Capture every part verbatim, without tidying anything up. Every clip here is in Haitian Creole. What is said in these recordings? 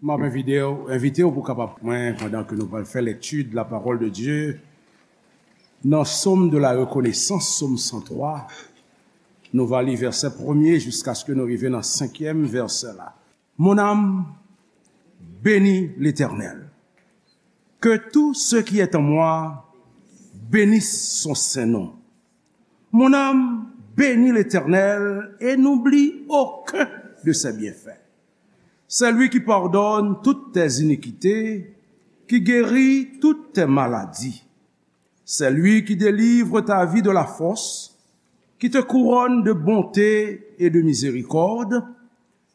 M ap envite w, envite w pou kapab mwen pandan ke nou pral fè lekti de la parole de Dieu nan Sòm de la rekonesans, Sòm san twa. Nou va li vèsè premye jiskaske nou rive nan senkyèm vèsè la. Mon âme, bénis l'Éternel. Que tout ce qui est en moi bénisse son saint nom. Mon âme, bénis l'Éternel et n'oublie aucun de ses bienfaits. C'est lui qui pardonne toutes tes iniquités, qui guérit toutes tes maladies. C'est lui qui délivre ta vie de la fosse, qui te couronne de bonté et de miséricorde.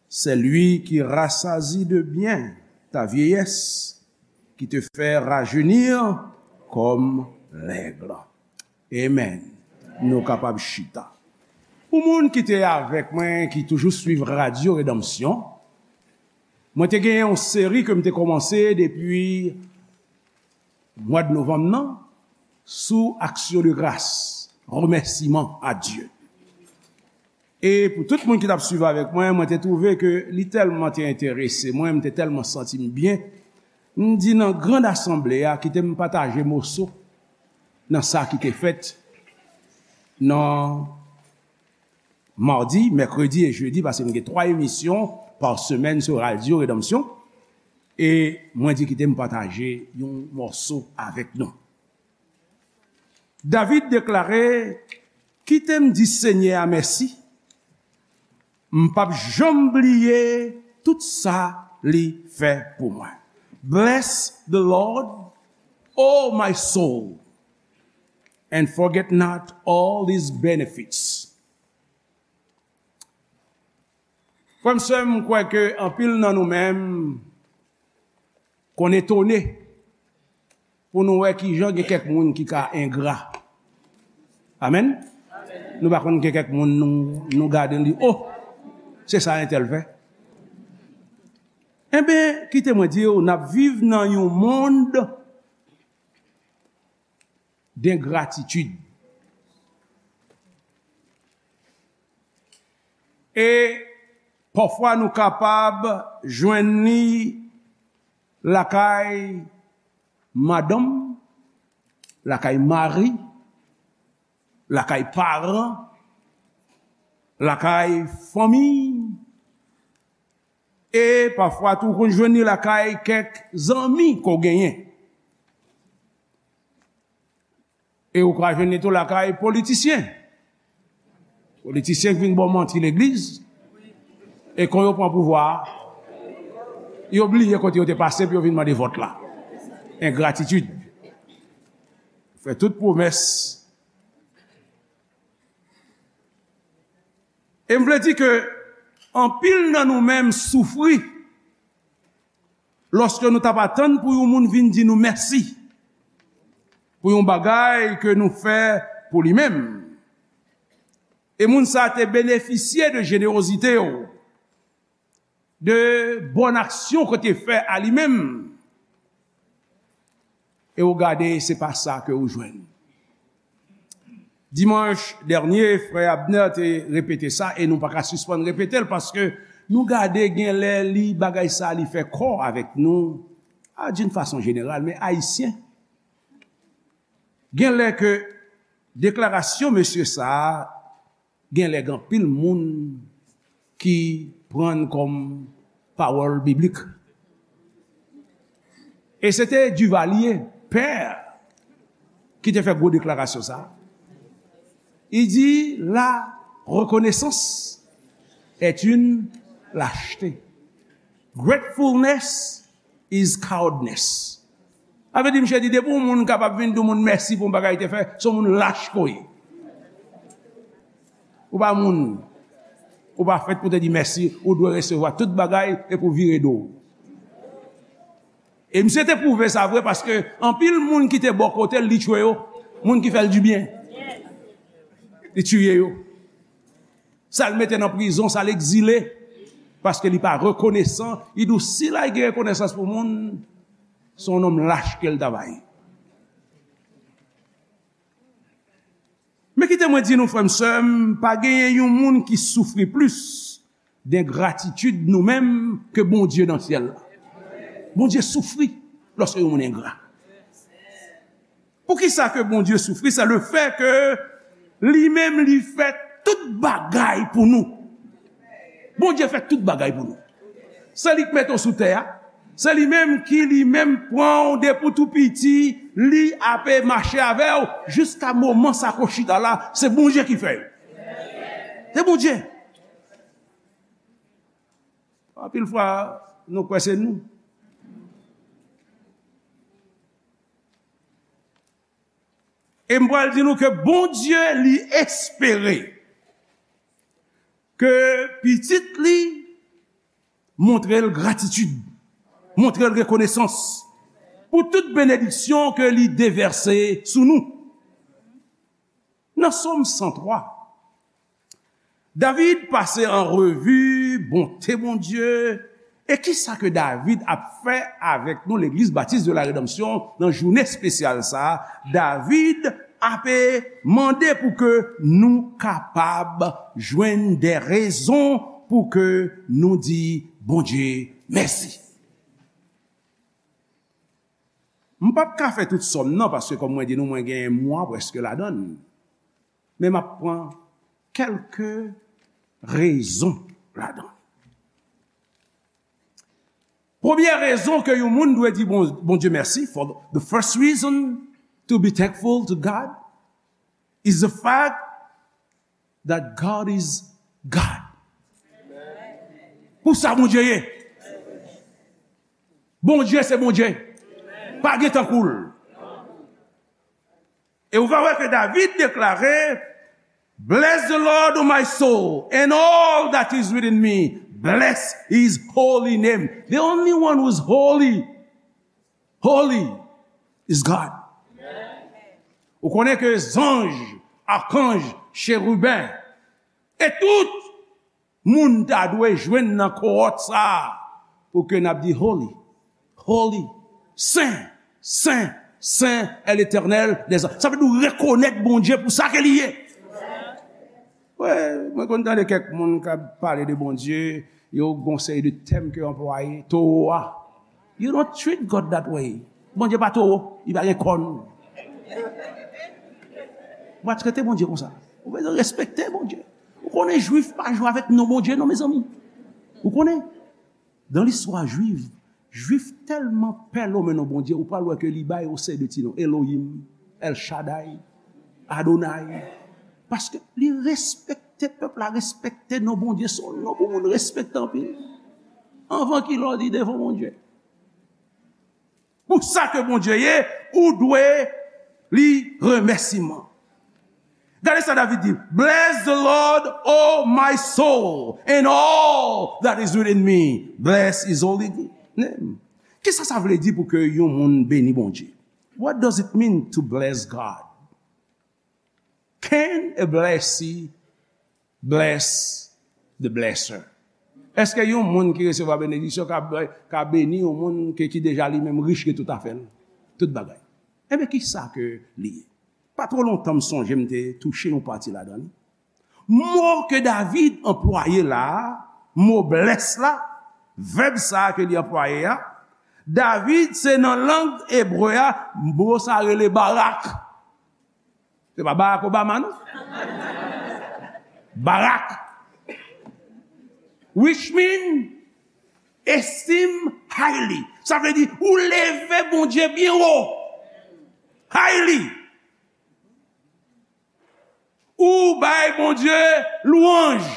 C'est lui qui rassasie de bien ta vieillesse, qui te fait rajeunir comme l'aigle. Amen. Nou kapab chita. Pou moun ki te avèk mwen, ki toujou swiv Radyo Redanmsyon, mwen te gen yon seri ke m te kòmanse depi mwa de novanm nan sou aksyon de gras, remèsiman a Dye. E pou tout moun ki t ap swiv avèk mwen, mwen te twouve ke li tèlman te enterese mwen, m te tèlman santi m byen. M di nan grand asanble a, kite m pataje moso nan sa ki te fèt nan madi, mèkredi e jedi, paske m gen twa emisyon pa semèn sou Radyo Redanmsyon. E mwen di kite m pataje yon mòso avèk nou. David deklare, kite m di Senyè a mèsi, m p ap janm bliye tout sa li fè pou mwen. Bless the Lord, oh my soul, and forget not all his benefits. Frè m, sè m, m kwè ke anpil nan nou menm konn etone pou nou wè kijan gen kèk moun ki ka engra. Amen? Nou pa konn gen kèk moun nou, nou gade, nou di, oh, se sa entèl fè. Enben, kite mwen di w, n ap viv nan yon mond dengratitid. E pafwa nou kapab jwenn li lakay madanm, lakay mari, lakay paran, lakay fanmi, e pafwa tou ou konn jwenn li lakay kèk zanmi ke w genyen. E ou ka jwenn li tou lakay politisyen. Politisyen ki vin ba w manti legliz. E kon yo pran pouvwa a, yo bliye kote yo te pase pou yo vin mande vòt la. Engratitid. Fè tout pwomès. E m vle di ke anpil nan nou menm soufri lòske nou t ap atann pou yon moun vin di nou mèsi pou yon bagay ke nou fè pou li menm. E moun sa a te benefisye de jenerozite w, de bòn aksyon ke w te fè a li menm. E w gade, se pa sa ke w jwenn. Dimanch dènye, frè Abner te repete sa, e nou pa ka sispann repete l, paske nou gade, gen lè li, bagay sa, li fè kò avèk nou, a, d'une façon générale, men Ayisyen. Gen lè ke deklarasyon mesye sa a, gen lè gen anpil moun ki pran l kòm pawòl biblik. E se te Duvalier, pè, ki te fè gwo deklarasyon sa a. Li di, la reconnaissance est une lâcheté. Gratefulness is cowardness. Sa vle di, misye di, depi yon moun kapab vin di yon moun mèsi pou yon bagay li te fè, se yon moun lach ke w ye. Ou pa moun. Ou pa fèt pou te di mèsi, ou dwe resevwa tout bagay epi w vire do w. E misye te pwouve sa vre, paske anpil moun ki te bò kote l, li tchwe yo. Moun ki fè l dibyen, li tiye yo. Sa l mete nan prizon, sa l egzile, paske li pa rekonesan. Li di w, si l al gen rekonesans pou moun, se yon nonm lach ke l ta va ye. Men kite mwen di nou, frè m, sè m, pa genyen yon moun ki soufri plis dengratitid nou menm ke Bondye nan syèl la. Bondye soufri lòske yon moun engra. Poukisa ke Bondye soufri? Se le fè ke li menm li fè tout bagay pou nou. Bondye fè tout bagay pou nou. Se li k mete w sou tè a. Se li menm ki li menm pran w depi w tou piti, li ape mache avè w jiska moman sa ke w chita la, se Bondye ki fè yo. Se Bondye. Anpil fwa, nou kwè se nou. E m pral di nou ke Bondye li espere ke pitit li montre l gratitid, montre l rekonesans pou tout benediksyon ke li devèse sou nou. Nan Sòm san twa, David pase an revi bonte Bondye. E kisa ke David ap fè avèk nou, Legliz Batis de la Redanmsyon, nan jounen espesyal sa a? David ape mande pou ke nou kapab jwenn de rezon pou ke nou di Bondye mèsi. M p ap ka fè tout sòm nan, paske kòm mwen di nou, mwen gen mwa prèske ladan l. Men m ap pran kèlke rezon ladan l. Premye rezon ke yon moun dwe di Bon-, Bondye mèsi, for the first reason to be thankful to God is the fact that God is God. Pou sa Bondye ye. Bondye se Bondye. Pa gen tankou l. E ou va wè ke David deklare, "Bless the Lord, O my soul, and all that is within me. Bless his holy name." The only one who is holy, holy is God. Ou konnen ke zanj, akanj, cheriben, e tout moun ta dwe jwenn nan kowòt sa a pou ke n ap di, "Holy, holy, sen, sen, sen è Letènèl dèzame." Sa vle di w rekonèt Bondye pou sa ke li ye. Wi, mwen konn tande kèk moun k ap pale de Bondye, yo gon seri de tèm ke yo anplwaye, towo a. You don't treat God that way. Bondye pa towo, li pa gen kòn. Ou pa trete Bondye konsa. Ou bezwen respekte Bondye. Ou konnen Jwif pa jwe avèk non Bondye non, mezanmi. Ou konnen, dan listwa Jwif, Jwif tèlman pè lonmen non Bondye, ou pral wè ke li bay yon seri de ti non. Elohim, El Shaddai, Adonai. Paske li respekte, pèp la respekte non Bondye, se yon non pou moun respekte anpil. Anvan ki lè w di devan Bondye. Pou sa ke Bondye ye, ou dwe li remèsiman. Gade sa David di, "Bless the Lord, O my soul, and all that is within me. Bless his holy name." Kisa sa vle di pou ke yon moun beni Bondye? What does it mean to bless God? Can a blessee bless the blesser? Èske yon moun ki resevwa benediksyon ka, ka beni yon moun ke, ki deja li menm rich, gen tout afè l, tout bagay? Enben, kisa ke li ye? Pa twò lontan, m sonje m te touche yon pati ladan li. Mo ke David anplwaye la a, mo bless la, vèb sa a ke li anplwaye a, David, se nan lang ebre a, mo sa rele barak. Se pa Barack Obama, non. Barak. Which mean esteem highly. Sa vle di, ou leve Bondye byen wo. Highly. Ou bay Bondye lwanj.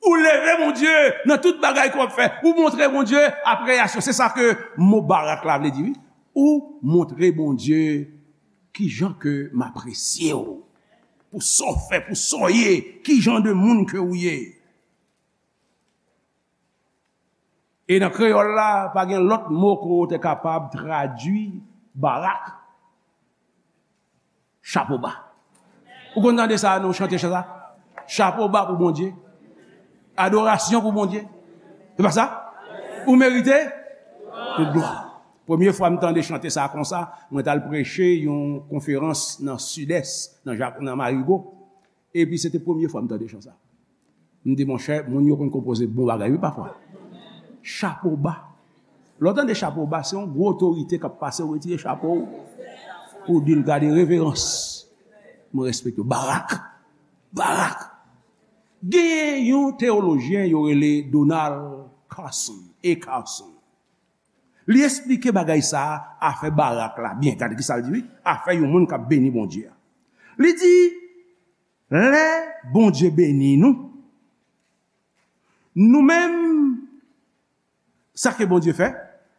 Ou leve Bondye nan tout bagay ke w ap fè. Ou montre Bondye apresyasyon. Se sa ke mo barak la vle di, wi. Ou montre Bondye kijan ke m apresye w. Pou sa w fè, pou sa w ye, kijan de moun ke w ye. E nan kreyòl la, pa gen lòt mo ke w te kapab tradui barak. Chapo ba. Ou konn tande sa, nou chante chan sa? Chapo ba pou Bondye. Adorasyon pou Bondye. Se pa sa? Ou merite tout glwa. Premye fwa m tande chante sa konsa, mwen t al preche yon konferans nan Sidès, nan Jak-, nan Marigo. Epi se te premye fwa m tande chan sa. M di, monchè, moun yo konn konpoze bon bagay, wi, pafwa. Chapo ba. Lè w tande chapo ba, se yon gwo otorite k ap pase, ou retire chapo w, ou di l gade reverans. Mwen respekte w. Barak. Barak. Gen yon teyolojyen yo rele Donald Carson, A. Carson. Li esplike bagay sa a, afè Barak la byen. Gade ki sa l di, wi. Afè yon moun k ap beni Bondye a. Li di, lè Bondye beni nou, nou menm, sa ke Bondye fè,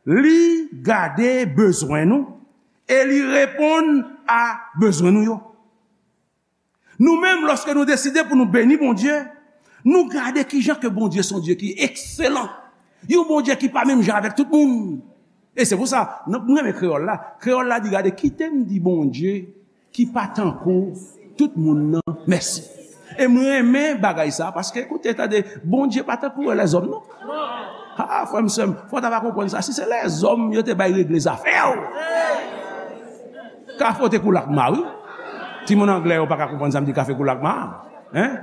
li gade bezwen nou e li reponn a bezwen nou yo. Nou menm, lòske nou deside pou nou beni Bondye, nou gade kijan ke Bondye se yon Dye ki ekselan. Yon Bondye ki pa menm jan avèk tout moun. E se pou sa, nan, mwen renmen kreyòl la. Kreyòl la di, gade, kite m di Bondye ki pa tankou tout moun nan mèsi. E mwen renmen bagay sa, paske, koute, tande, Bondye pa tankou lèzòm, non. Ha, frè m, sè m, fò w ta va konprann sa. Si se lèzòm yo te bay regle zafè w, kafe w te koule ak ma, wi. Timoun anglè yo pa ka konprann sa m di kafe koule ak ma. Hein?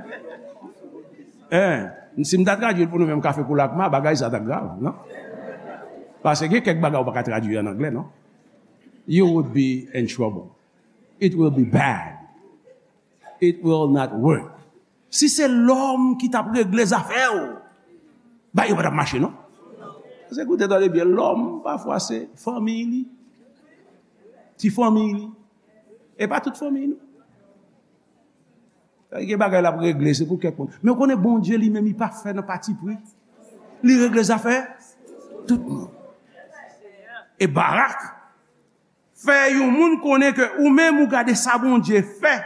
Hein? Si m ta tradui l pou nou menm, kafe koule ak ma, bagay sa t ap grav, non? Paske gen kèk bagay ou pa ka tradui an anglè, non? You would be in trouble. It will be bad. It will not work. Si se lòm ki t ap regle zafè w, bagay yo pa t ap mache, non. Paske, koute, tande byen, lòm, pafwa, se fanmi li. Ti fanmi li. E pa tout fanmi, non. Gen bagay l ap regle, se pou kèk moun. Men w konnen Bondye li menm, li pa fè nan patipri. Li regle zafè tout moun. E Barak fè yon moun konnen ke ou menm ou gade sa Bondye fè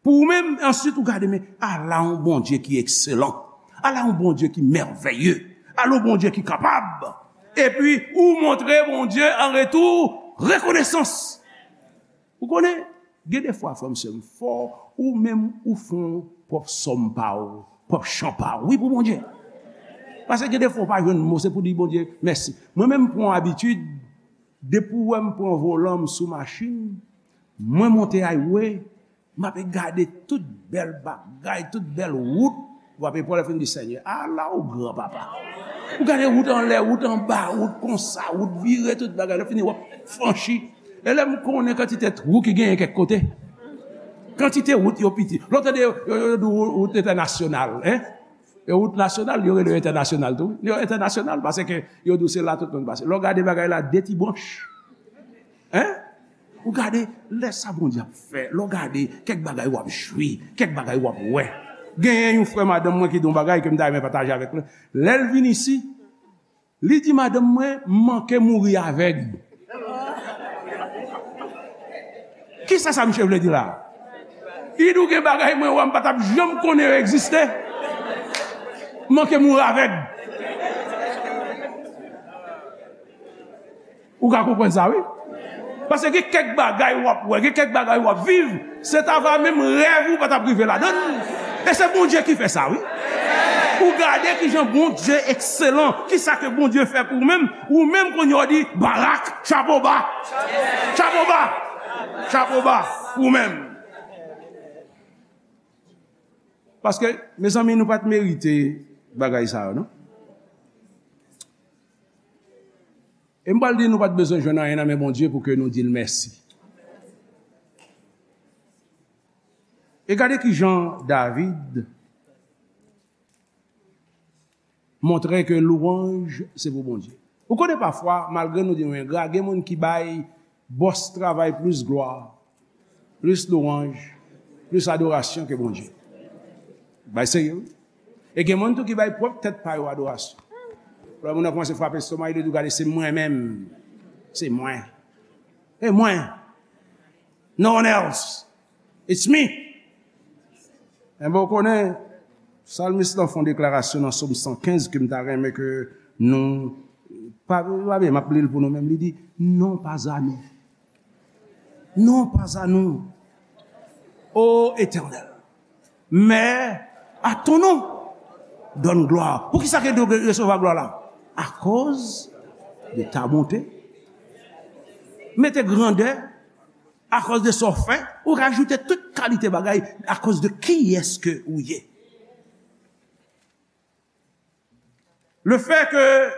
pou ou menm, answit ou gade, men ala yon Bondye ki ekselan, ala yon Bondye ki mèvèye, ala yon Bondye ki kapab. Epi ou montre Bondye an retou rekonesans. Ou konnen, gen de fwa, frè m, sè m, fò ou menm ou fè yon pwòp sòm pa ou, pwòp chan pa ou, wi, pou Bondye. Paske gen de fwa ou pa jwenn mo, se pou di Bondye mèsi. Mwen menm, m pran yon abitid, depi w wè m pran volan, m sou machin, mwen monte highway, m ape gade tout bèl bagay, tout bèl wout, w ape pran lè fin di, Senyè, ala w gran, papa. Ou gade wout anlè, wout anba, wout konsa, wout vire, tout bagay. Lè fini, w ap franchi. E lè m konnen kantite twou ki genyen kèk kote. Kantite wout yo piti. Lè w tande yo, yo, yo di wout entènasyonal, hein? E wout nasyonal, yo rele yo entènasyonal tou. Yo entènasyonal paske yo di w se la tout moun pase. Lè w gade bagay la, de ti branch. Hein? Ou gade, lè sa Bondye ap fè, lè w gade, kèk bagay w ap jwi, kèk bagay w ap wè. Genyen yon frè madanm mwen ki di yon bagay ke m ta renmen pataje avèk nou. Lè l vin isi, li di madanm mwen, "M manke mouri avèg." Kisa sa misye vle di la? Li di w gen bagay mwen wè m pa t ap janm konnen yo egziste. M manke mouri avèg. Ou ka konprann sa, wi. Paske gen kèk bagay w ap wè, gen kèk bagay w ap viv, se ta va menm rèv ou pa t ap rive ladan l. E se Bondye ki fè sa, wi. Ou gade kijan Bondye ekselan, kisa ke Bondye fè pou ou menm, ou menm kounye a w di, Barak, chapo ba. Chapo ba. Chapo ba pou ou menm. Paske, mezanmi, nou pa t merite bagay sa yo, non? E m pral di nou pa t bezwen jwenn anyen nan men Bondye pou ke nou di l mèsi. E gade kijan David montre ke lwanj se pou Bondye. Ou konnen pafwa, malgre nou di nou engra, gen moun ki bay bòs travay plis glwa, plis lwanj, plis adorasyon ke Bondye. Bay serye, wi. E gen moun tou ki bay pwòp tèt pa yo adorasyon. Lè moun nan kòmanse frape estoma, li di w, "Gade, se mwen menm. Se mwen. E mwen. No one else. It's me." Enben, ou konnen, salmis lan fè yon deklarasyon nan Sòm san kenz ke m ta renmen ke nou, pa, pa byen, m ap li l pou nou menm. Li di, "Non pas à nous. Non pas à nous, ô Éternel, mais à ton nom donne gloire." Poukisa ke nou resevwa glwa la? Akoz de ta bonte. Mete grandè, akoz de sa w fè, ou rajoute tout kalite bagay, akoz de kiyès ke ou ye. Le fait que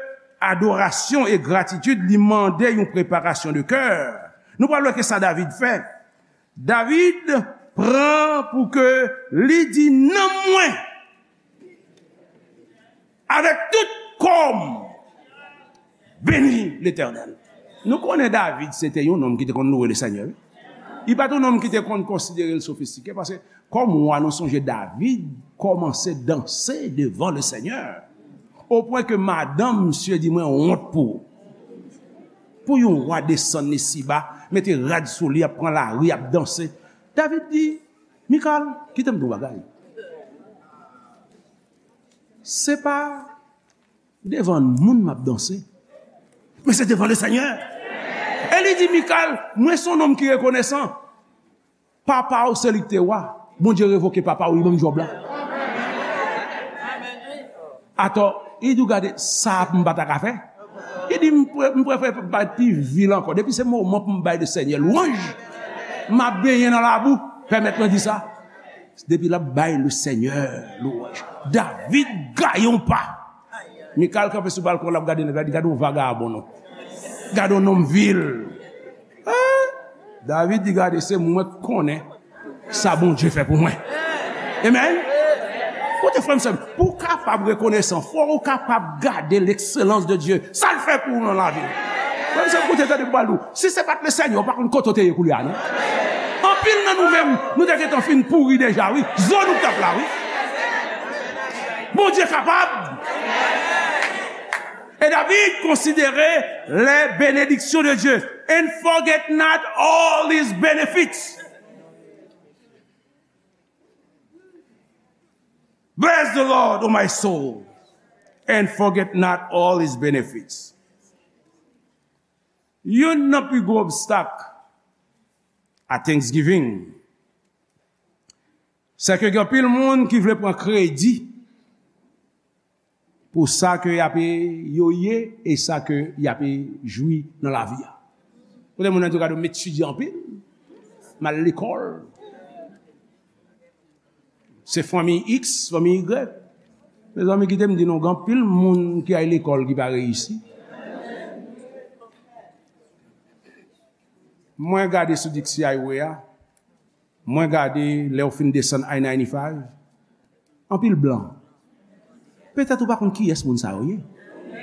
adorasyon e gratitid, li mande yon preparasyon de kè. Nou pral wè ke sa David fè. David pran pou ke li di nanm mwen, avèk tout kò m, beni Letènèl. Nou konnen David se te yon nonm ki te konn louwe Lesenyè, wi. Li pa t yon nonm ki te konn konsidere l sofistike, paske kòm wa, nou sonje David kòmanse danse devan Lesenyè, opwen ke madanm misye di, "Mwen wont pou ou." Pou yon wa desann isiba, mete rad sou li, ap pran lari, ap danse. David di, "Mikal, kite m di w bagay. Se pa devan moun m ap danse, men se devan Lesenyè." E li di, "Mikal, mwen se yon nonm ki rekonesan. Papa w se li k te wa. Bondye revoke papa w, li ban m djòb la." Atò, li di w, "Gade, sa m pa ta ka fè." Li di, "M pre-, m prefere bay pi vil ankò. Depi se moman pou m bay Lesenyè lwanj, m ap benyen nan labou, pèmèt mwen di sa." Depi l ap bay Lesenyè lwanj, David gaye yon pa. Mikal kanpe sou balkon, l ap gade nèg la, di, "Gade yon vagabon, non. Gade yon nonm vil." Hein? David di, "Gade, se mwen k konnen sa Bondye fè pou mwen." Amen. Koute, frè m, sè m, pou w kapab rekonesan, fò w kapab gade l'excellence de Dieu, sa l fè pou ou nan lavi w. Frè m, sè m, koute, tande m pral di w, si se pa t Lesenyè, ou pa konn kote w te ye koulye a, non. Anpil nan nou menm, nou te gentan fin pouri deja, wi. Zo nou t ap la, wi. Bondye kapab. E David konsidere les bénédictions de Dieu. "And forget not all his benefits." "Bless the Lord, O my soul, and forget not all his benefits." Youn nan pi gwo obstak a Thanksgiving, se ke gen anpil moun ki vle pran kredi pou sa ke y ap, yo ye, e sa ke y ap jwi nan lavi a. Kote moun nan di w, "Gade, m etidye anpil, m al lekòl. Se fanmi X, fanmi Y." Mezanmi, kite m di nou, gen anpil moun ki al lekòl ki pa reyisi. Mwen gade sou Dixie Highway a, mwen gade lè w fin desann I ninety-five, anpil blan. Petèt ou pa konn kiyès moun sa yo ye.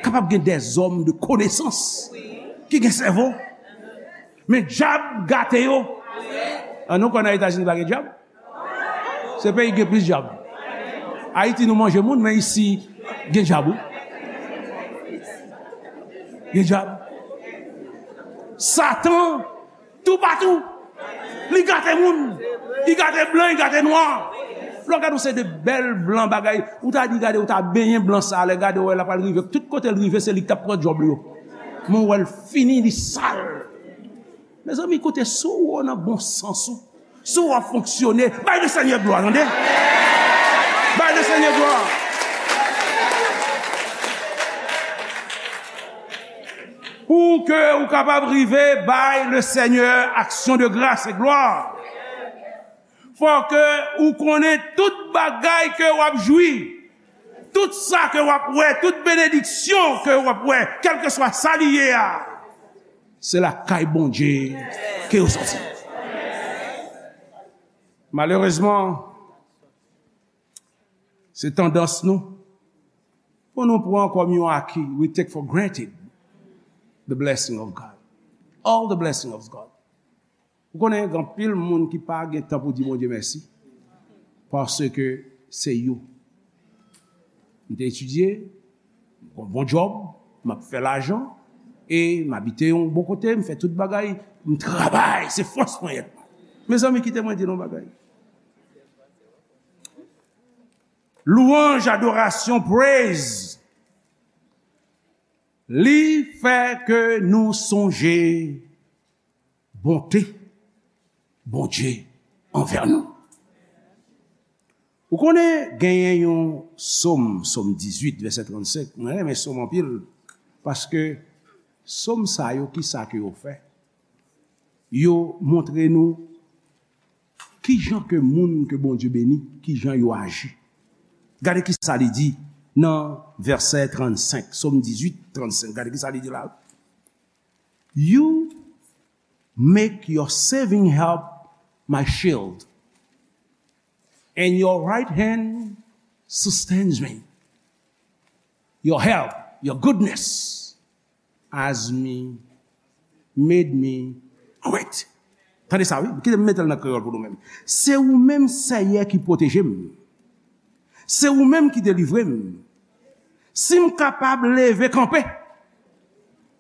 Kapab gen dèzòm de konesans ki gen sèvo. Men dyab gate yo. An nou kwè nan Etazini pa gen dyab? Se peyi ki gen plis dyab. Ayiti nou manje moun, men isi gen dyab, wi. Gen dyab. Satan toupatou. Li gate moun. Li gate blan, li gate nwa. Lè w gade yon seri de bèl blan bagay, ou ta di, "Gade, ou ta benyen blan sa a, lè gade, w wè l ap al rive. Tout kote l rive, se li k t ap pran djòb li yo. Men w wè l fini, li sal." Mezanmi, koute, si w nan bon sans ou, si w ap fonksyone, bay Lesenyè glwa, tande. Bay Lesenyè glwa. Pou ke ou kapab rive bay Lesenyè aksyon de gras e glwa, fò ke ou konnen tout bagay ke w ap jwi, tout sa ke w ap wè, tout benediksyon ke w ap wè, kèlkeswa sa li ye a, se lakay Bondye ke yo soti. Malerezman, se tandans nou pou nou pran kòm yon aki. We take for granted the blessing of God. All the blessing of God. Ou konnen, gen anpil moun ki pa gen tan pou di Bondye mèsi, paske se yo. M te etidye, m gon bon djòb, m ap fè lajan, e m abite yon bon kote, m fè tout bagay, m travay, se fòs mwen ye. Mezanmi, kite mwen di nou yon bagay. Louanj, adorasyon, praise, li fè ke nou sonje bonte Bondye anvè nou. Ou konnen, genyen yon sòm, sòm dizuit, vèsè trannsenk. Mwen renmen sòm anpil, paske sòm sa yo, ki sa ke yo fè? Yo montre nou ki jan ke moun ke Bondye beni, ki jan yo aji. Gade ki sa li di nan vèsè trannsenk, Sòm dizuit, trannsenk. Gade ki sa li di la. You make your saving help my shield, and your right hand sustains me. Your help, your goodness has me, made me great. Tande sa, wi. Kite m mete l nan kreyòl pou nou menm. Se ou menm, Seyè, ki pwoteje m. Se ou menm ki delivre m. Si m kapab leve kanpe,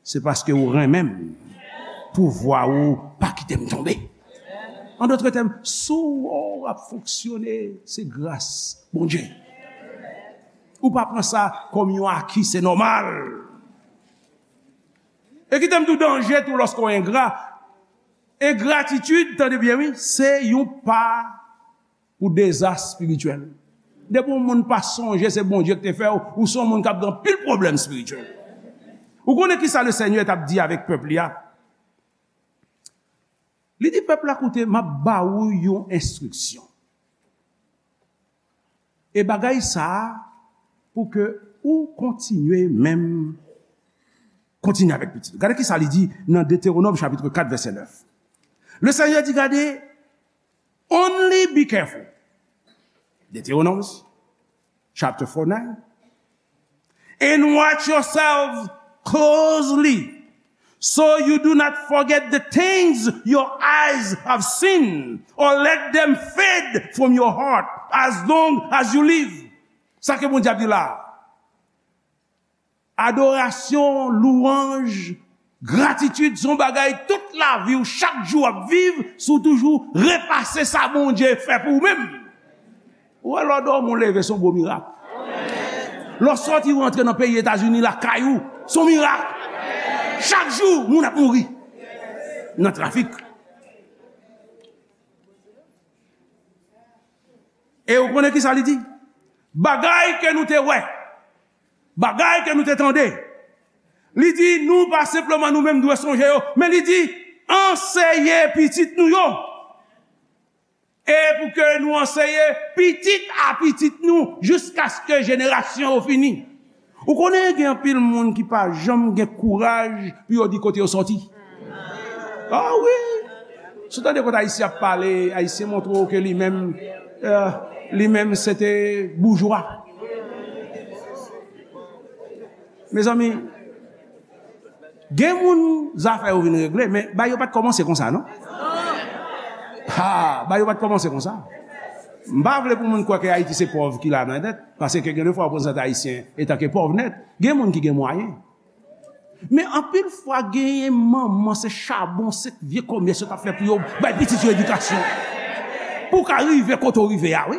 se paske ou renmen m. Pouvwa ou pa kite m tonbe. An dòt tèm, si w ap fonksyone, se gras Bondye. Ou pa pran sa kòm yon aki, se nòmal. E kite m di w danje tou lòske w engra. Engratitid, tande byen wi, se yon pa pou dezas espirityèl. Depi yon moun pa sonje se Bondye ki te fè w, ou se yon moun k ap gen anpil pwoblèm espirityèl. Ou konnen ki sa Lesenyè t ap di avèk pèp li a? Li di pèp la, koute, m ap ba ou yon enstriksyon. E bagay sa a, pou ke ou kontinye menm, kontinye avèk pitit. Gade ki sa li di nan Detewonòm chapit kat vèsè nèf. Lesenyè di, gade, only be careful. Deuteronomy chapter four nine. And watch yourselves closely, so you do not forget the things your eyes have seen, or let them fade from your heart as long as you live. Sa ke Bondye ap di la. Adorasyon, louwanj, gratitid, se yon bagay tout lavi w, chak jou w ap viv, si w toujou repase sa Bondye fè pou ou menm. Ou wè lè w dòmi, w leve, se yon gwo mirak. Lè w sòti, w rantre nan peyi Etazini, lakay ou, se yon mirak. Chak jou, moun ap mouri nan trafik. E ou konnen ki sa li di? Bagay ke nou te wè, bagay ke nou te tande. Li di, nou pa senpleman nou menm dwe sonje yo, men li di, anseye pitit nou yo. E pou ke nou anseye pitit a pitit nou jiskaske jenerasyon yo fini. Ou konnen gen anpil moun ki pa janm gen kouraj pou yo di kote yo sòti. Ah wi! Si w tande kote Ayisyen ap pale, Ayisyen montre w ke li menm, eh, li menm se te boujwa. Mezanmi, gen moun zafè yo vin regle, men bagay yo pa t kòmanse konsa, non? Ha, bagay yo pa t kòmanse konsa. M pa vle pou moun kwè ke Ayiti se pòv ki la nan nèt, paske gen de fwa w konn santi Ayisyen etanke pòv nèt. Gen moun ki gen mwayen. Men anpil fwa, genyen manman, se chabon, se vye kòmès yo t ap fè pou yo bay pitit yo edikasyon. Pou w ka rive kote w rive a, wi.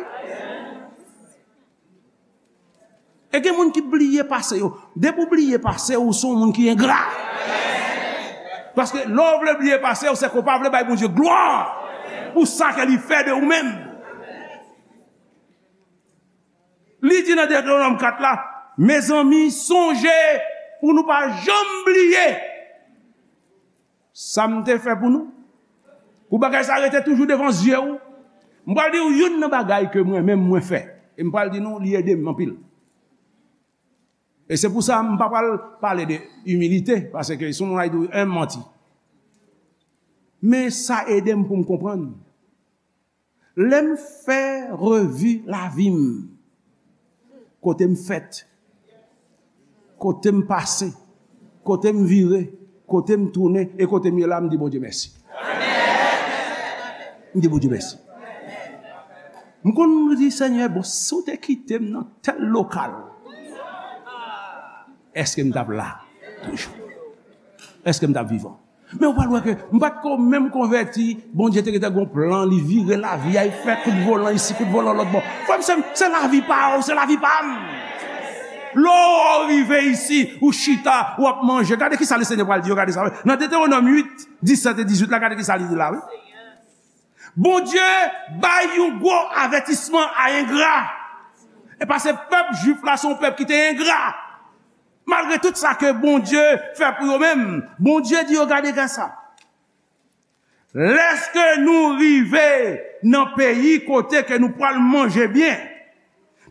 E gen moun ki bliye pase yo. Depi w bliye pase w, ou se yon moun ki engra. Paske lè w vle bliye pase w, se ke w pa vle bay Bondye glwa pou sa ke li fè de ou menm. Li di nan Detewonòm kat la, mezanmi, sonje pou nou pa janm bliye sa m te fè pou nou. Pou bagay sa rete toujou devan zye w. M pral di w youn nan bagay ke mwen menm mwen fè. E m pral di nou, li ede m anpil. E se pou sa m pa pral pale de imilite, paske si yon moun al di w en manti. Men sa ede m pou m konprann. Lè m fè revi lavi m, kote m fèt, kote m pase, kote m vire, kote m tounen e kote m ye la, m di Bondye mèsi. M di Bondye mèsi. M konn di, Senyè, bon, si w te kite m nan tèl lokal, èske m t ap la toujou? Èske m t ap vivan? Men ou pral wè ke m pa t ko menm konvèti, Bondye te gentan gon plan, li vire lavi a, li fè kout volan isi, kout volan lòt bò. Frè m, sè m, se lavi pa w, se lavi pa m. Lè w rive isi, ou chita, w ap manje. Gade ki sa Lesenyè pral di yo, gade sa. Nan Detewonòm uit, disèt e dizuit la, gade ki sa li di la, wi. Bondye bay yon gwo avètisman a engra. E paske pèp jwif la se yon pèp ki te engra. Malgre tout sa ke Bondye fè pou yo menm, Bondye di yo, gade, gade sa. Lèske nou rive nan peyi kote ke nou pral manje byen,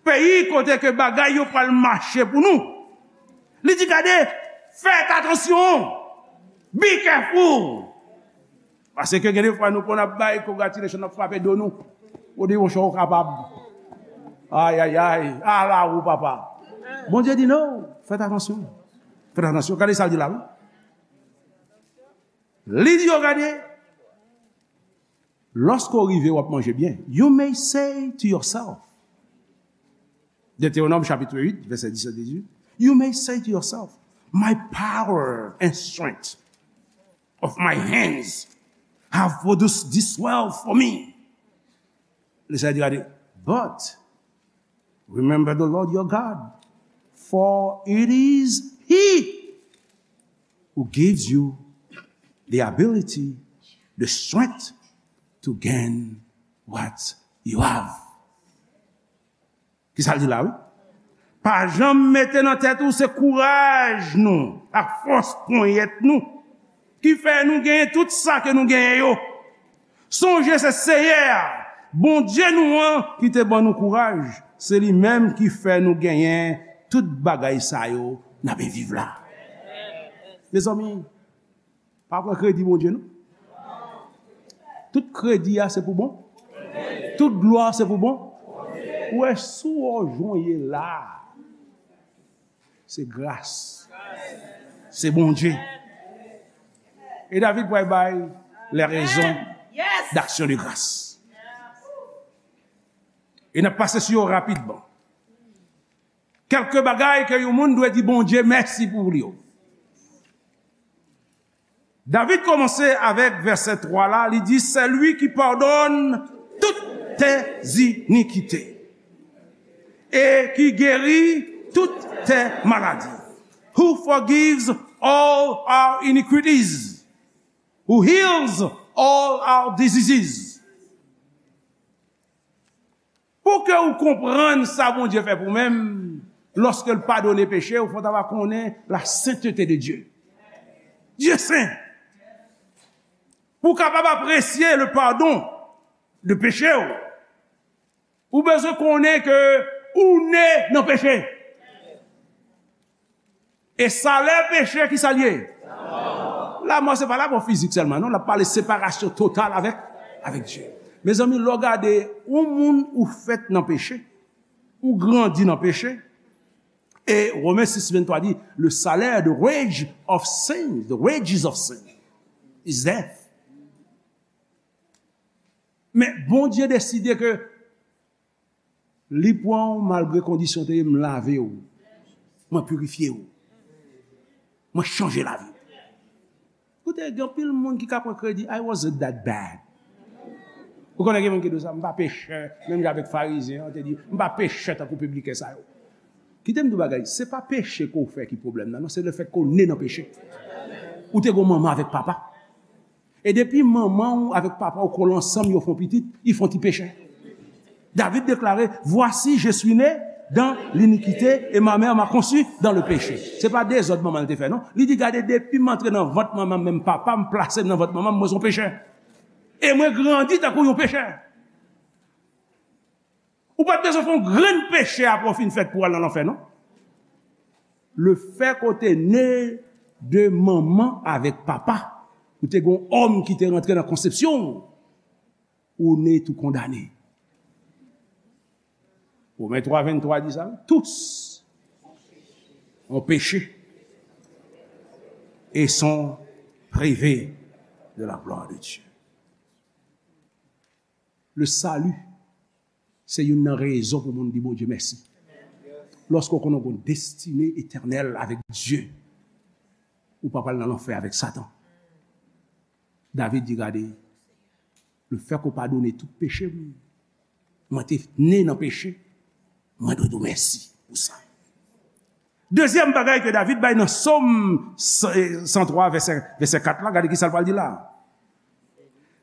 peyi kote ke bagay yo pral mache pou nou. Li di, gade, fèt atansyon, be careful. Paske gen de fwa nou konn ap bay congratulation, n ap frape do nou. Ou di, monchè, ou kapab. Ay, ay, ay, ala ou, papa. Bondye di, non, fèt atansyon. Fèt atansyon. Gade sa l di la, wi. Li di yo, gade, lòske w rive, w ap manje byen. You may say to yourself, Deutéronome chapitre huit, verset dix à dix-huit, you may say to yourself, my power and strength of my hands have produced this wealth for me. Li sa di, gade, but remember the Lord your God, for it is He who gives you the ability, the strength to gain what you have. Ki sa l di la, wi? Pa janm mete nan tèt ou se kouraj nou ak fòs ponyèt nou ki fè nou genyen tout sa ke nou genyen yo. Sonje se Seyè a, Bondye nou an, ki te ban nou kouraj. Se li menm ki fè nou genyen tout bagay sa yo n ap viv la. Mezanmi, pa pran kredi Bondye, non. Tout kredi a se pou bon. Tout glwa se pou bon. Ou wè, si w wè w jan w ye la, se gras. Se Bondye. E David pral bay les raisons d'action de grâce. E n ap pase sou yo rapidman. Kèlke bagay ke yon moun dwe di Bondye mèsi pou li yo. David kòmanse avèk vèsè twa la, li di, c'est lui qui pardonne toutes tes iniquités et qui guérit toutes tes maladies, who forgives all our iniquities, who heals all our diseases. Pou ke ou konprann sa Bondye fè pou menm, lòske l padone peche, ou fò ta va konnen la sainteté de Dieu. Dieu saint. Pou w kapab apresye le pardon de peche w, ou bezwen konnen ke ou ne nan peche. E salè peche, ki sa l ye? Lanmò. Se pa lanmò fizik sèlman, non. L ap pale separasyon total avèk, avèk Dye. Mezanmi, lè w gade yon moun ou fèt nan peche, ou grandi nan peche, e Women sis venntwa di, le salaire, the wage of sin, the wages of sin is death. Men Bondye deside ke li pran w malgre kondisyon te ye, m lave w. Mwen pirifye w. Mwen chanje lavi w. Koute, gen anpil moun ki ka pran kredi, I wasn't that bad. Ou konnen gen moun ki di sa, m pa pechè, menm jan avèk Farizyen an te di, m pa pechè tankou pibliken sa yo. Kite m di w bagay, se pa peche ke w fè ki pwoblèm nan, non, se lefètke w ne nan peche. Ou te gon manman avèk papa. E depi manman w avèk papa w kole ansanm, yo fè yon pitit, y font ti peche. David deklare, voici, je suis né dans l'iniquité et ma mère m'a conçu dans le péché. Se pa dezòd manman l te fè, non. Li di, gade, depi m antre nan vant manman m, menm papa m plase m nan vant manman m, mwen se yon pechè. E mwen grandi tankou yon pechè. Ou pa t bezwen fè yon grenn peche apre w fin fèt pou w al nan lanfè, non. Lefètke w te ne de manman avèk papa, ou te gen yon òm ki te rantre nan konsepsyon w, ou ne tou kondane. Women twa venntwa di sa, tous ont péché et sont privés de la gloire de Dieu. Le salut, se youn nan rezon pou moun di Bondye mèsi. Lòske w konnen w gen yon destine etènèl avèk Dye, ou pa pral nan lanfè avèk Satan. David di, gade, lefètke w padone tout peche m, mwen te ne nan peche, mwen dwe di w mèsi pou sa. Dezyèm bagay ke David bay nan Sòm san twa, vèsè, vèsè kat la, gade ki sa l pral di la.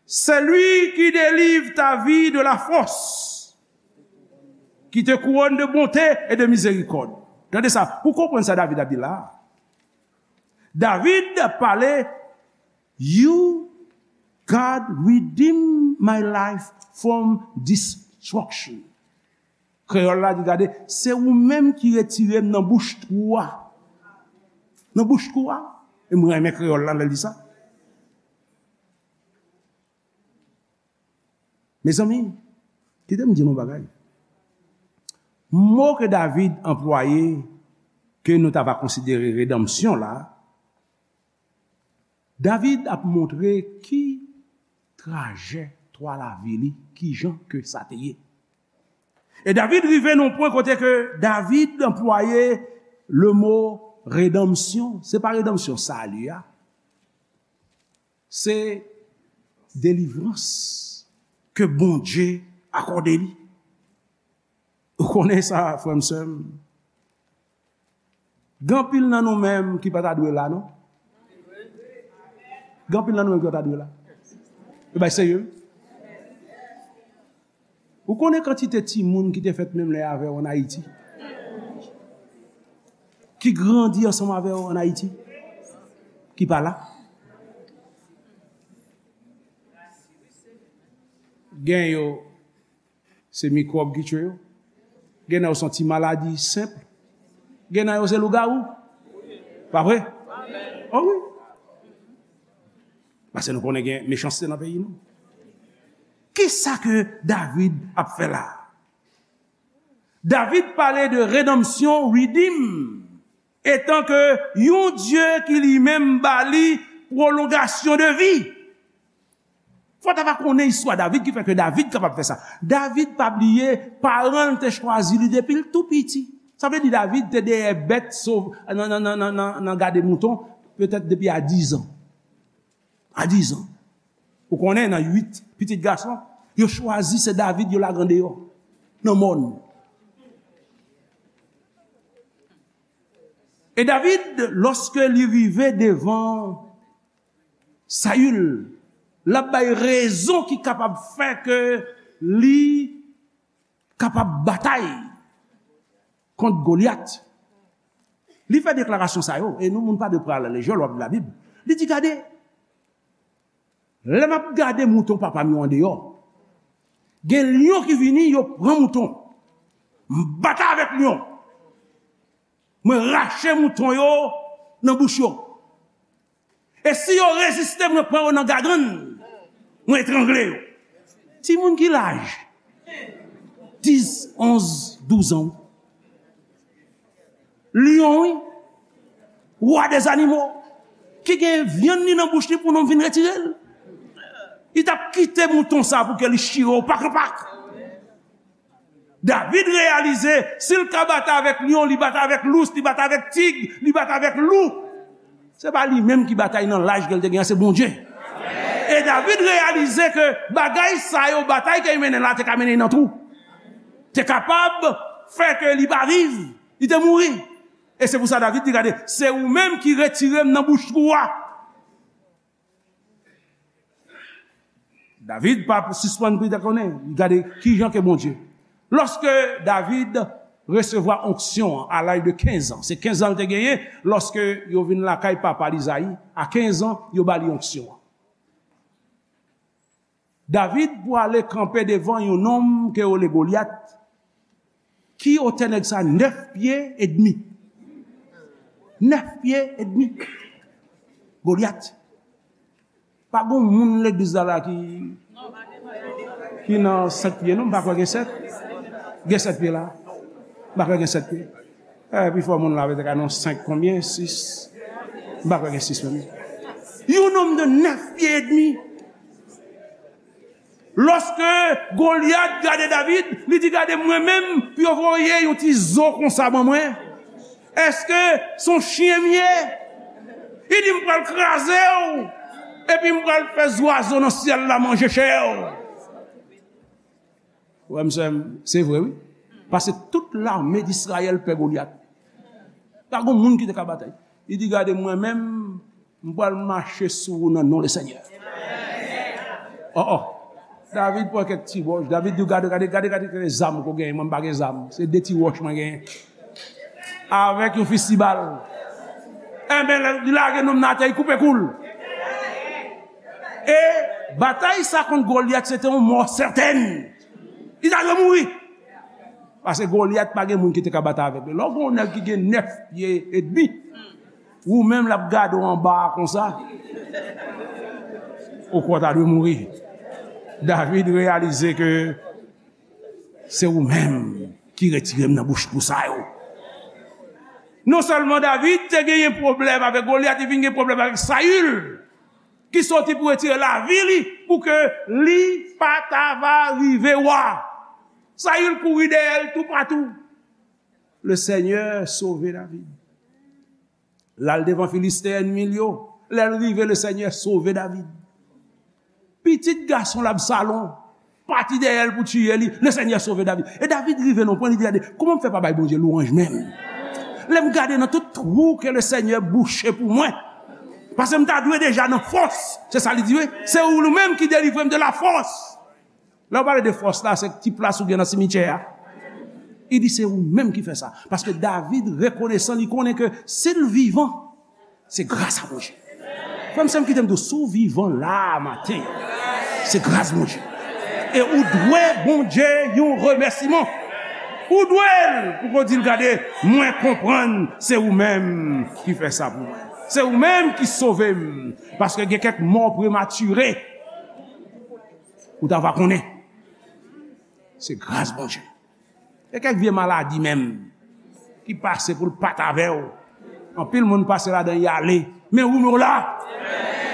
C'est lui qui délivre ta vie de la fosse, qui te couronne de bonté et de miséricorde. Tande sa, pou konprann sa David ap di la. David pale, you, God, redeem my life from destruction. Kreyòl la di, gade, se ou menm ki retire m nan bouch twou a. Nan bouch twou a. E mwen renmen kreyòl la, lè l di sa. Mezanmi, kite m di nou bagay. Mo ke David anplwaye, ke nou ta va konsidere redanmsyon la, David ap montre ki trajektwa lavi li, ki jan ke sa te ye. E David rive nan pwen kote ke David anplwaye le mo redanmsyon. Se pa redanmsyon sali a. Se delivrans ke Bondye akòde li. Ou konnen sa, frè m, sè m. Gen anpil nan nou menm ki pa ta dwe la, non? Gen anpil nan nou menm ki pa ta dwe la. E bay serye, wi. Ou konnen kantite timoun ki te fèt menm lè avè w ann Ayiti? Ki grandi ansanm avè w ann Ayiti? Ki pa la? Gen yo, se mikwòb ki tye yo. Gen nan yo se yon ti maladi senp. Gen nan yo se lougawou. Pa vre? O wi. Paske nou konnen gen mechanste nan peyi nou. Kisa ke David ap fè la? David pale de redanmsyon, redeem, etan ke yon Dye ki li menm ba li pwolongasyon de vi. Fò ta va konnen istwa David ki fè ke David kapab fè sa. David pa bliye, paran l te chwazi li depi l tou piti. Sa vle di David te dèyè bèt sov-, nan, nan, nan, nan, nan, nan gade mouton, petèt depi a diz an. A diz an. Ou konnen, nan uit pitit gason, yo chwazi se David yo lage andeyò, nan mòn. E David, lòske li rive devan Sayil, l ap bay rezon ki kapab fè ke li kapab batay kont Golyat. Li fè deklarasyon sa yo, e nou moun pa dwe pran a la lejè lè w ap li Labib. Li di, gade, lè m ap gade mouton papa m yo andeyò, gen lyon ki vini, yo pran mouton. M batay avèk lyon. Mwen rache mouton yo nan bouch yo. E si yo reziste, mwen pran yo nan gagann, mwen etrangle yo. Timoun ki laj? Dis, onz, douz an. Lyon, wi. Wa dèzanimo. Ki gen vyann li nan bouch li pou nonm vin retire l. Li t ap kite mouton sa pou ke li chire w pak an pak. David reyalize, si l ka batay avèk lyon, li batay avèk lous, li batay avèk tig, li batay avèk lou. Se pa li menm ki batay nan laj ke l te gen an, se Bondye. E David reyalize ke bagay sa yo, batay ke l mennen la, te ka mennen l nan twou. Te kapab fè ke li pa viv, li te mouri. E se pou sa David di, gade, se ou menm ki retire m nan bouch twou a. David pa sispann priye, konnen, li gade kijan ke Bondye. Lòske David resevwa onksyon an a laj de kenz an, se kenz an l te genyen lòske yo vin lakay papa l Izayi, a kenz an, yo ba li onksyon an. David pou ale kanpe devan yon nonm ke yo rele Golyat, ki otè nèg sa? Nèf pye edmi. Nèf pye edmi. Golyat. Pa gon moun legliz la, la ki, ki nan sèt pye, non, m pa kwè gen sèt. Gen sèt pye la. M pa kwè gen sèt pye. Eh, pifò moun la, petèt ka nan senk, konbyen? Sis. M pa kwè gen sis menm. Yon nonm de nèf pye edmi. Lòske Golyat gade David, li di, gade mwen menm, pou yo voye yon ti zo konsa ban mwen. Èske se yon chen m ye? Li di, m pral kraze w, epi m pral fè zwazo nan syèl la manje chè w. Frè m, sè m, se vre, wi. Paske tout lame d Izrayèl pè Golyat. Pa gen moun ki te ka batay. Li di, gade, mwen menm, m pral mache sou ou nan non Lesenyè. Oh, oh. David pran kèk ti wòch. David di, gade, gade, gade, gade, gade zam ke w genyen. Mwen, m pa gen zam. Se de ti wòch mwen genyen. Avèk yon fistibal. Enben, li lage nonm nan atè, li koupe kou l. E batay sa kont Golyat, se te yon mò sètèn. Li ta dwe mouri. Paske Golyat pa gen moun ki te ka batay avèk li. Lè w gen yon nèg ki gen nèf pye edmi, ou menm l ap gade w anba a konsa, ou kwè w ta dwe mouri. David reyalize ke se ou menm ki retire m nan bouch pou sa yo. Non sèlman David te genyen pwoblèm avèk Golyat, li vin gen pwoblèm avèk Sayil, ki soti pou retire lavi li, pou ke li pa ta va rive wa. Sayil kouri dèyè l toupatou. Le Seigneur sauve David. L al devan Filisten ènmi l yo. Lè l rive, le Seigneur sauve David. Pitit gason l Absalon pati dèyè l pou tiye li. Le Seigneur sauve David. E David rive nan pwen, li di, "Gade, kouman m fè pa bay Bondye lwanj menm? Lè m gade nan tout twou ke le Seigneur bouche pou mwen. Paske m ta dwe deja nan fòs." Se sa li di, wi. "Se ou menm ki delivre m de la fòs." Lè w pale de fòs la, se ti plas ou gen nan simityè a. Li di, "Se ou menm ki fè sa." Paske David rekonesan, li konnen ke si l vivan, se gras a Bondye. Frè m, sè m, kite m di w, si w vivan la a maten, se gras Bondye. E ou dwe Bondye yon remèsiman. Ou dwe l pou w di l, "Gade, mwen konprann se ou menm ki fè sa pou mwen. Se ou menm ki sove m." Paske gen kèk mò prematire, ou ta va konnen. Se gras Bondye. E kèk vye maladi menm ki pase pou l pa t avè w. Anpil moun pase ladan y ale. Men ou, men w la.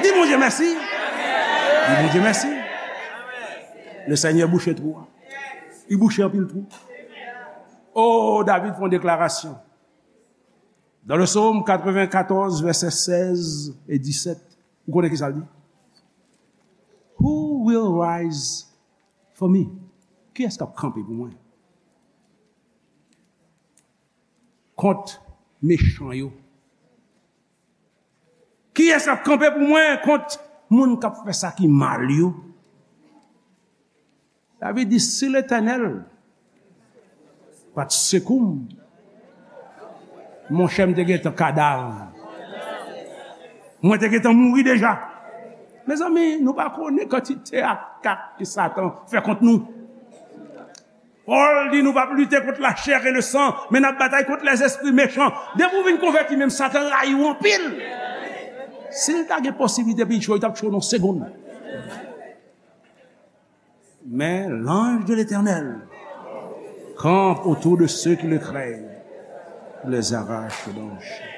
Di Bondye mèsi. Di Bondye mèsi. Le Seigneur bouche twou a. Li bouche anpil twou. Oh, David fè yon deklarasyon. Dans le psaume quatre-vingt-quatorze, verset seize et dix-sept, ou konnen ki sa l di? "Who will rise for me?" Kiyès k ap kanpe pou mwen kont mechan yo? Kiyès k ap kanpe pou mwen kont moun k ap fè sa ki mal yo? David di, "Si Letènèl pa t sekou m, monchè, m te gentan kadav. Mwen te gentan mouri deja." Mezanmi, nou pa konnen kantite atak ke Satan fè kont nou. Pòl di nou p ap lite kont lachè e lesan, men n ap batay kont lèzespri mechan. Depi w vin konvèti, menm Satan rayi w anpil. Si l ta gen posiblite pou l tchwe w, li t ap tchwe w nan yon segonn. Mais l'ange de l'Éternel campe autour de ceux qui le craignent, il les arrache dans le champ.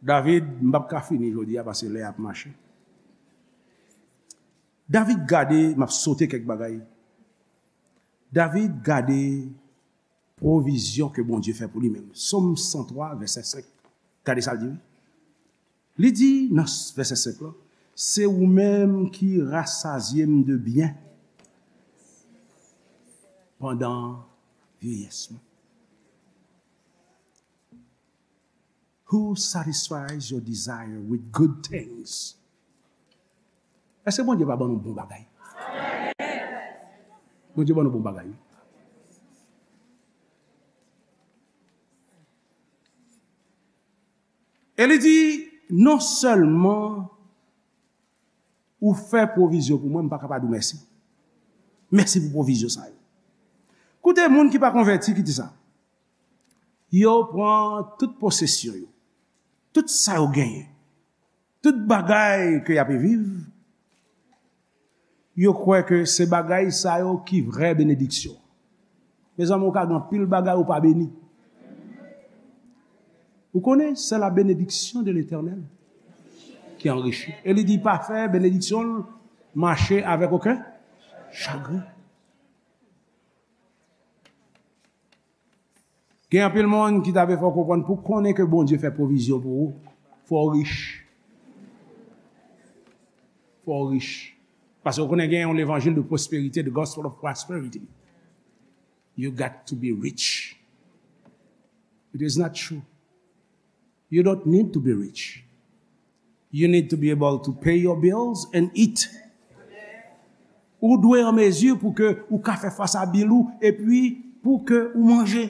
David, m p ap ka fini jodi a paske lè a ap mache. David gade, m ap sote kèk bagay. David gade pwovizyon ke Bondye fè pou li menm. Sòm san twa, vèsè senk. Gade sa l di, wi. Li di nan vèsè senk lan, "Se ou menm ki rasazye m de byen pandan vyeyès mwen." Who satisfies your desire with good things? Èske Bondye pa ban nou bon bagay? Bondye ban nou bon bagay, wi. E li di, non sèlman ou fè pwovizyon pou mwen, m pa ka pa di w mèsi. Mèsi pou pwovizyon sa yo. Koute, moun ki pa konvèti, ki di sa? Yo pran tout posesyon yo, tout sa yo genyen, tout bagay ke y ape viv, yo kwè ke se bagay sa yo ki vrè benediksyon. Mezanmi, ou ka gen anpil bagay ou pa beni. Ou konnen, c'est la bénédiction de l'Éternel qui enrichit. E li di pa fè benediksyon l mache avèk okenn chagren. Gen anpil moun ki ta vle fè w konprann pou konnen ke Bondye fè pwovizyon pou ou, fò w rich. Fò w rich. Paske w konnen gen yon levanjil de pwosperite, the gospel of prosperity. You got to be rich. It is not true. You don't need to be rich. You need to be able to pay your bills and eat. Ou dwe an mezi pou ke ou ka fè fas a bil ou epi pou ke ou manje.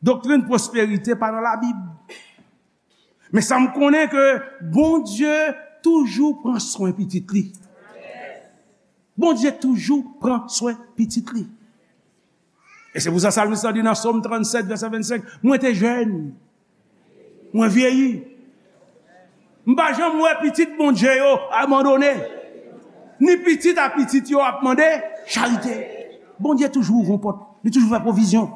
Doktrin pwosperite pa nan Labib. Men sa m konnen ke Bondye toujou pran swen pitit li. Bondye toujou pran swen pitit li. E se pou sa salmis la di nan Sòm trannsèt, vèsè vennsenk, mwen te jèn, mwen vyeyi. M pa janm wè pitit Bondye yo abandone. Ni pitit a pitit yo ap mande charite. Bondye toujou ouvri yon pòt. Li toujou fè pwovizyon.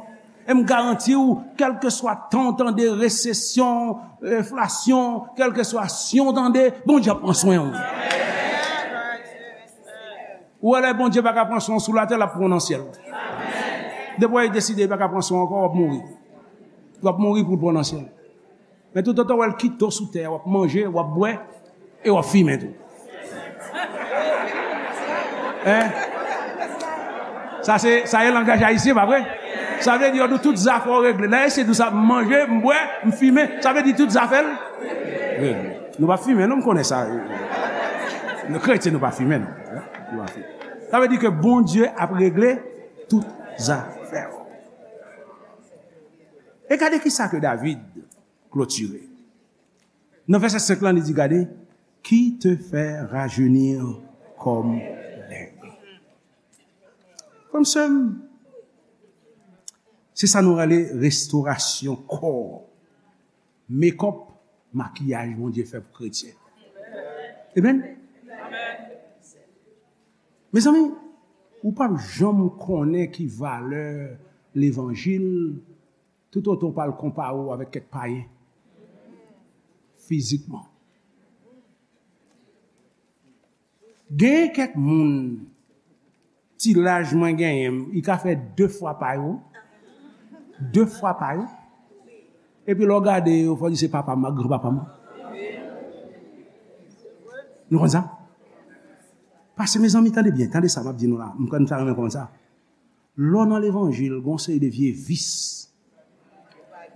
E m garanti w, kèlkeswa tan w tande resesyon, enflasyon, kèlkeswa syon w tande, Bondye ap pran swen w. Ou wè lè Bondye pa ka pran swen w sou latè, l ap pran w nan syèl. Depi w deside li pa ka pran swen w ankò, w ap mouri. W ap mouri pou l pran w nan syèl. Men toutotan w wè l kite w sou tè a, w ap manje, w ap bwè, e w ap fimen tou. Hein? Sa se, sa e langaj ayisyen, pa vre? Sa vle di yo di w tout zafè w regle. Lè ayisyen di w sa, m manje, m bwè, m fimen, sa vle di tout zafè l regle. Nou pa fimen, non, m konnen sa. Nou kretyen, nou pa fimen, non. Hein? Nou pa fimen. Sa vle di ke Bondye ap regle tout zafè w. E gade ki sa ke David klotire. Nan vèsè senk lan, li di, gade, qui te fait rajeunir comme l'aigle. Frè m, sè m, se sa nou rele restorasyon kò. Mekòp, makiyaj Bondye fè pou kretyen. Amen. Mezanmi, ou p ap janm konnen ki valè levanjil toutotan w pa al konpare w avèk kèk payen fizikman. Genyen kèk moun, ti laj mwen genyen, li ka fè de fwa pa yo. De fwa pa yo. Epi lè w gade yo, fò w di se papa m ak granpapa m. Nou konn sa? Paske, mezanmi, tande byen, tande sa m ap di nou la. M konn sa renmen konn sa. Lè w nan levanjil, gen yon seri de vye vis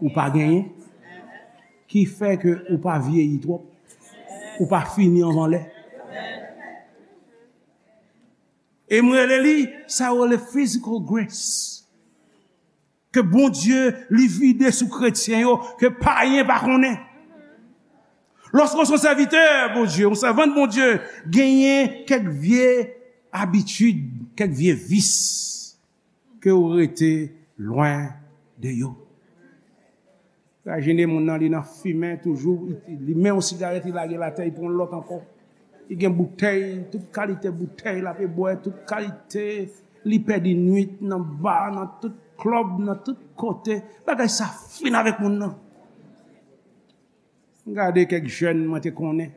ou pa genyen, ki fè ke ou pa vyeyi twòp, ou pa fini anvan lè. E m rele li, sa yo rele physical grace. Ke Bondye li vide sou kretyen yo, ke payen pa konnen. Lòske w se yon sèvitè Bondye, yon sèvant Bondye, genyen kèk vye abitid, kèk vye vis ke w rete lwen de yo. Imajine moun nan, li nan fimen toujou, li, li men yon sigarèt, li lage l atè, li pran yon lòt ankò. Li gen boutèy, tout kalite boutèy l ape bwè, tout kalite, li pèdi nwit nan ba, nan tout klèb, nan tout kote. Bagay sa fin avèk moun nan. M gade kèk jèn mwen te konnen,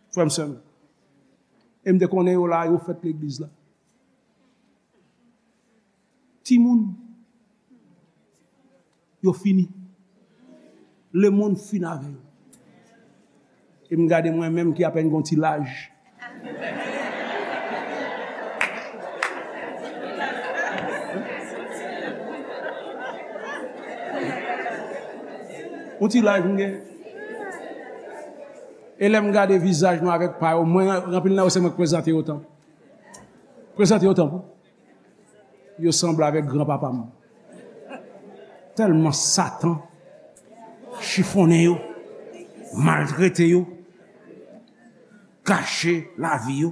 frè m, sè m. E m te konnen yo la, yo fèt legliz la. Timoun, yo fini. Lemonn fin avè yo. E m gade mwen menm ki apèn gon ti laj. Yon ti laj m gen. E lè m gade vizaj nou avèk pa yo, mwen, anpil nan yo se mwen k prezante yo tanpou. Prezante yo tanpou. Yo sanble avèk granpapa m. Tèlman Satan chifonnen yo, maltrete yo, gache lavi yo.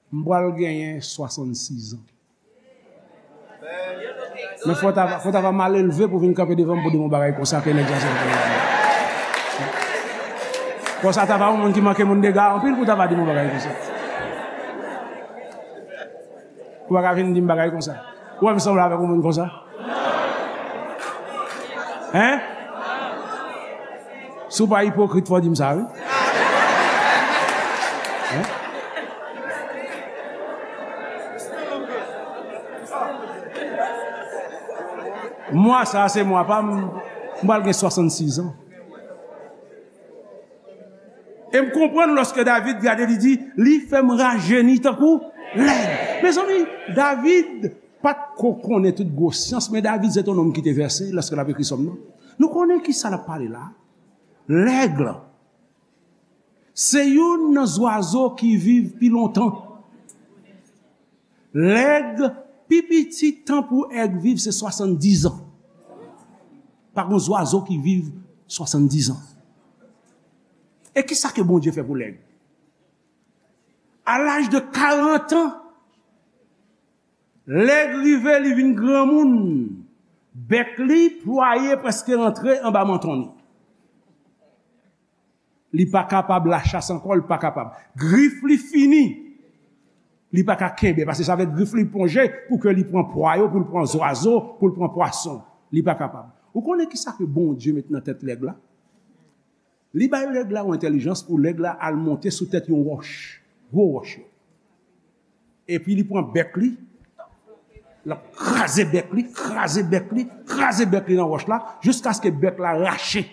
M pral genyen swasannsis an. Men fò ta, fò ta va mal elve pou vin kanpe devan m pou di m yon bagay konsa ke nèg sa se. Konsa ta va yon moun ki manke moun dega anpil pou ta va di m yon bagay konsa. Ou pa ka vin di m bagay konsa. Ou wè m sanble avèk yon moun konsa? Hein? Si w pa ipokrit, fò w di m sa, wi. Hein? Mwa sa a, se mwa pa m, m pral gen swasannsis an. E m konprann lòske David gade, li di, li fè m rajeni tankou lèg. Mezanmi, David pa t ko konnen tout gwo syans, men David se t yon nonm ki te vèse lòske l ap ekri sòm nan. Nou konnen ki sa l ap pale la. Lèg, se youn nan zwazo ki viv pi lontan. Lèg, pi piti tan pou èg viv se swasanndiz an. Pa gen zwazo ki viv swasanndiz an. E kisa ke Bondye fè pou lèg? A laj de karant an, lèg rive, li vin granmoun. Bèk li plwaye, prèske rantre anba manton li. Li pa kapab lachas ankò, li pa kapab. Grif li fini. Li pa ka kenbe, paske sa vle grif li plonje pou ke li pran pwa yo, pou l pran zwazo, pou l pran pwason. Li pa kapab. Ou konnen kisa ke Bondye met nan tèt lèg la? Li bay lèg la yon entèlijans pou lèg la al monte sou tèt yon wòch, gwo wòch yo. Epi li pran bèk li, l ap kraze bèk li, kraze bèk li, kraze bèk li nan wòch la, jiskaske bèk la rache.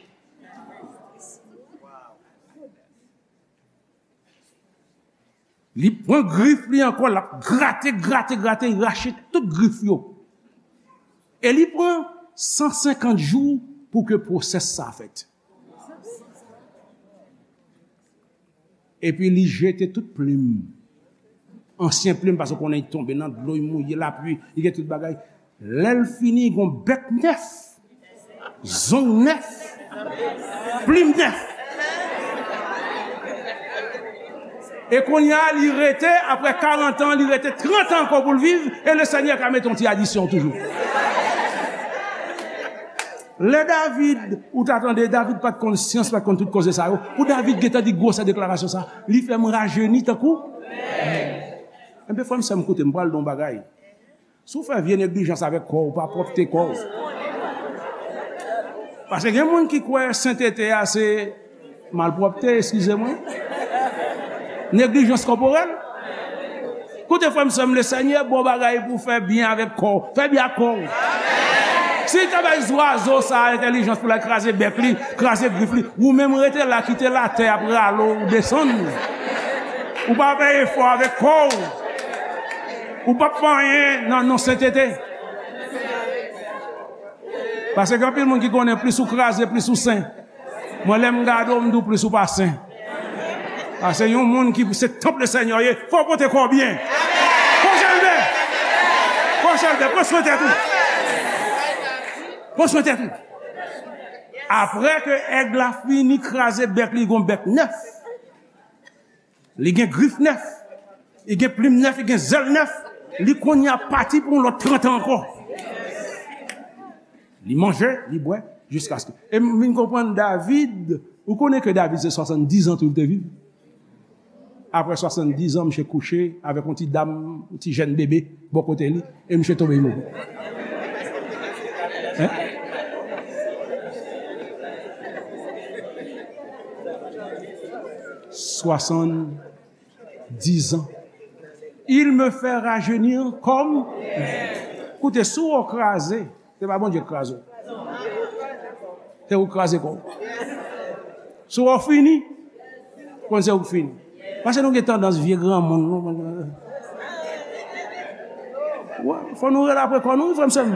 Li pran grif li ankò, l ap grate, grate, grate, rache tout grif yo. E li pran san senkant jou pou ke pwosès sa fèt. Epi li jete tout plim. Ansyen plim, paske w konnen li tonbe nan dlo, li mouye, lapli, li gen tout bagay. Lè l fini, li gon bèk nèf, zong nèf, plim nèf. E kounye a, li rete, apre karant an, li rete trant an ankò pou l viv, e Lesenyè ka mete yon ti adisyon toujou. Lè David, ou ta tande, David pa t konn syans, pa t konn tout koze sa yo. Pou David gentan di gwosè deklarasyon sa, li fè m rajeni tankou. Enben, frè m, sè m, koute, m pral di w yon bagay. Si w fè vye neglijans avèk kò w, ou pa pwòpte kò w. Paske gen moun ki kwè sentete a se malpwòpte, eskize mwen. Neglijans kòporèl. Koute, frè m, sè m, Lesenyè ba w bagay pou w fè byen avèk kò w. Fè byen ak kò w. Si l ta bay zwazo sa a entèlijans pou l al kraze bèk li, kraze grif li, ou menm rete la, kite latè ap rale w desann. Ou pa fè efò avèk kò w. Ou p ap fè anyen nan non sentete. Paske gen anpil moun ki konnen plis ou kraze, plis ou sen. Mwen, lè m gade w, m di w plis ou pa sen. Paske yon moun ki se tanp Lesenyè w ye, fò w pote kò w byen. Pran chalbè. Pran chalbè. Pran swen tèt ou. Pran swen tèt ou. Apre ke èg la fini kraze bèk li, gon bèk nèf. Li gen grif nèf, li gen plim nèf, li gen zèl nèf, li kounye a pati pou yon lòt trant an ankò. Li manje, li bwè, jiskaske. E m vin konprann David, ou konnen ke David se swasanndiz an tou li te viv. Apre swasanndiz an, misye kouche avèk yon ti dam, yon ti jèn bebe, bò kote li. E misye tonbe, li mouri. Hein? Soixante-dix ans. Il me fait rajeunir comme. Koute, si w kraze, se pa Bondye k kraze w. Se ou k kraze kò w. Si w fini, konn se ou k fini. Paske nou gen tandans vye granmoun, nou. Wè, fò nou rele apre kò nou, wi, frè m, sè m.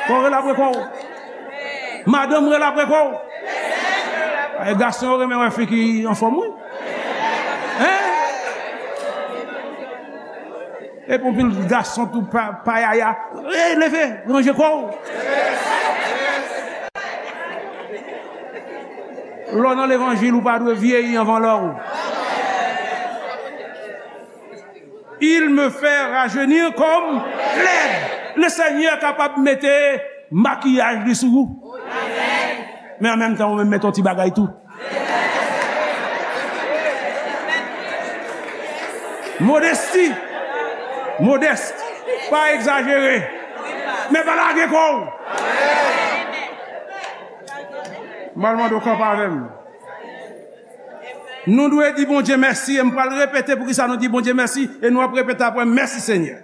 Fò w rele apre kò w. Madanm, rele apre kò w. E gason yo renmen wè fi ki anfòm, wi. Hein? Epi yon pil gason tou pa, payaya. Ey, leve, ranje kò w. Lè w nan levanjil, ou pa dwe vyeyi anvan lè w. Il me fait rajeunir comme l'aigle. Le Senyè kapab mete makiyaj li sou ou. Men an menm tan, ou menm mete yon ti bagay tou. Modesti. Modès. Pa egzajere. Men pa lage kò w. M pral mande w kanpe avè m. Nou dwe di Bondye mèsi, e m pral repete poukisa nou di Bondye mèsi, e nou ap repete apre, mèsi Senyè.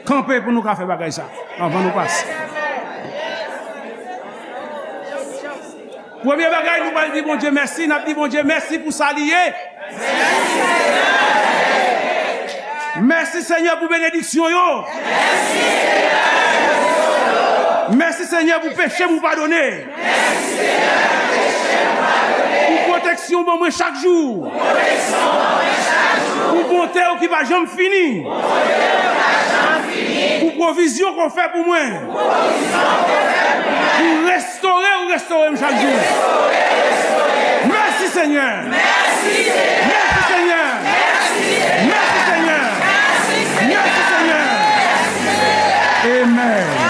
Kanpe pou nou ka fè bagay sa, anvan nou pase. Premye bagay, nou pral di Bondye mèsi, n ap di Bondye mèsi pou sa li ye. Mèsi, Senyè, pou benediksyon yo. Mèsi, Senyè, pou peche m ou padone. Pou pwoteksyon w ban mwen chak jou. Pou bonte w ki pa janm fini. Pou pwovizyon ke w fè pou mwen. Pou restore ou restore m chak jou. Senyè. Mèsi, Senyè. Mèsi, Senyè. Mèsi, Senyè. Mèsi, Senyè. Amen.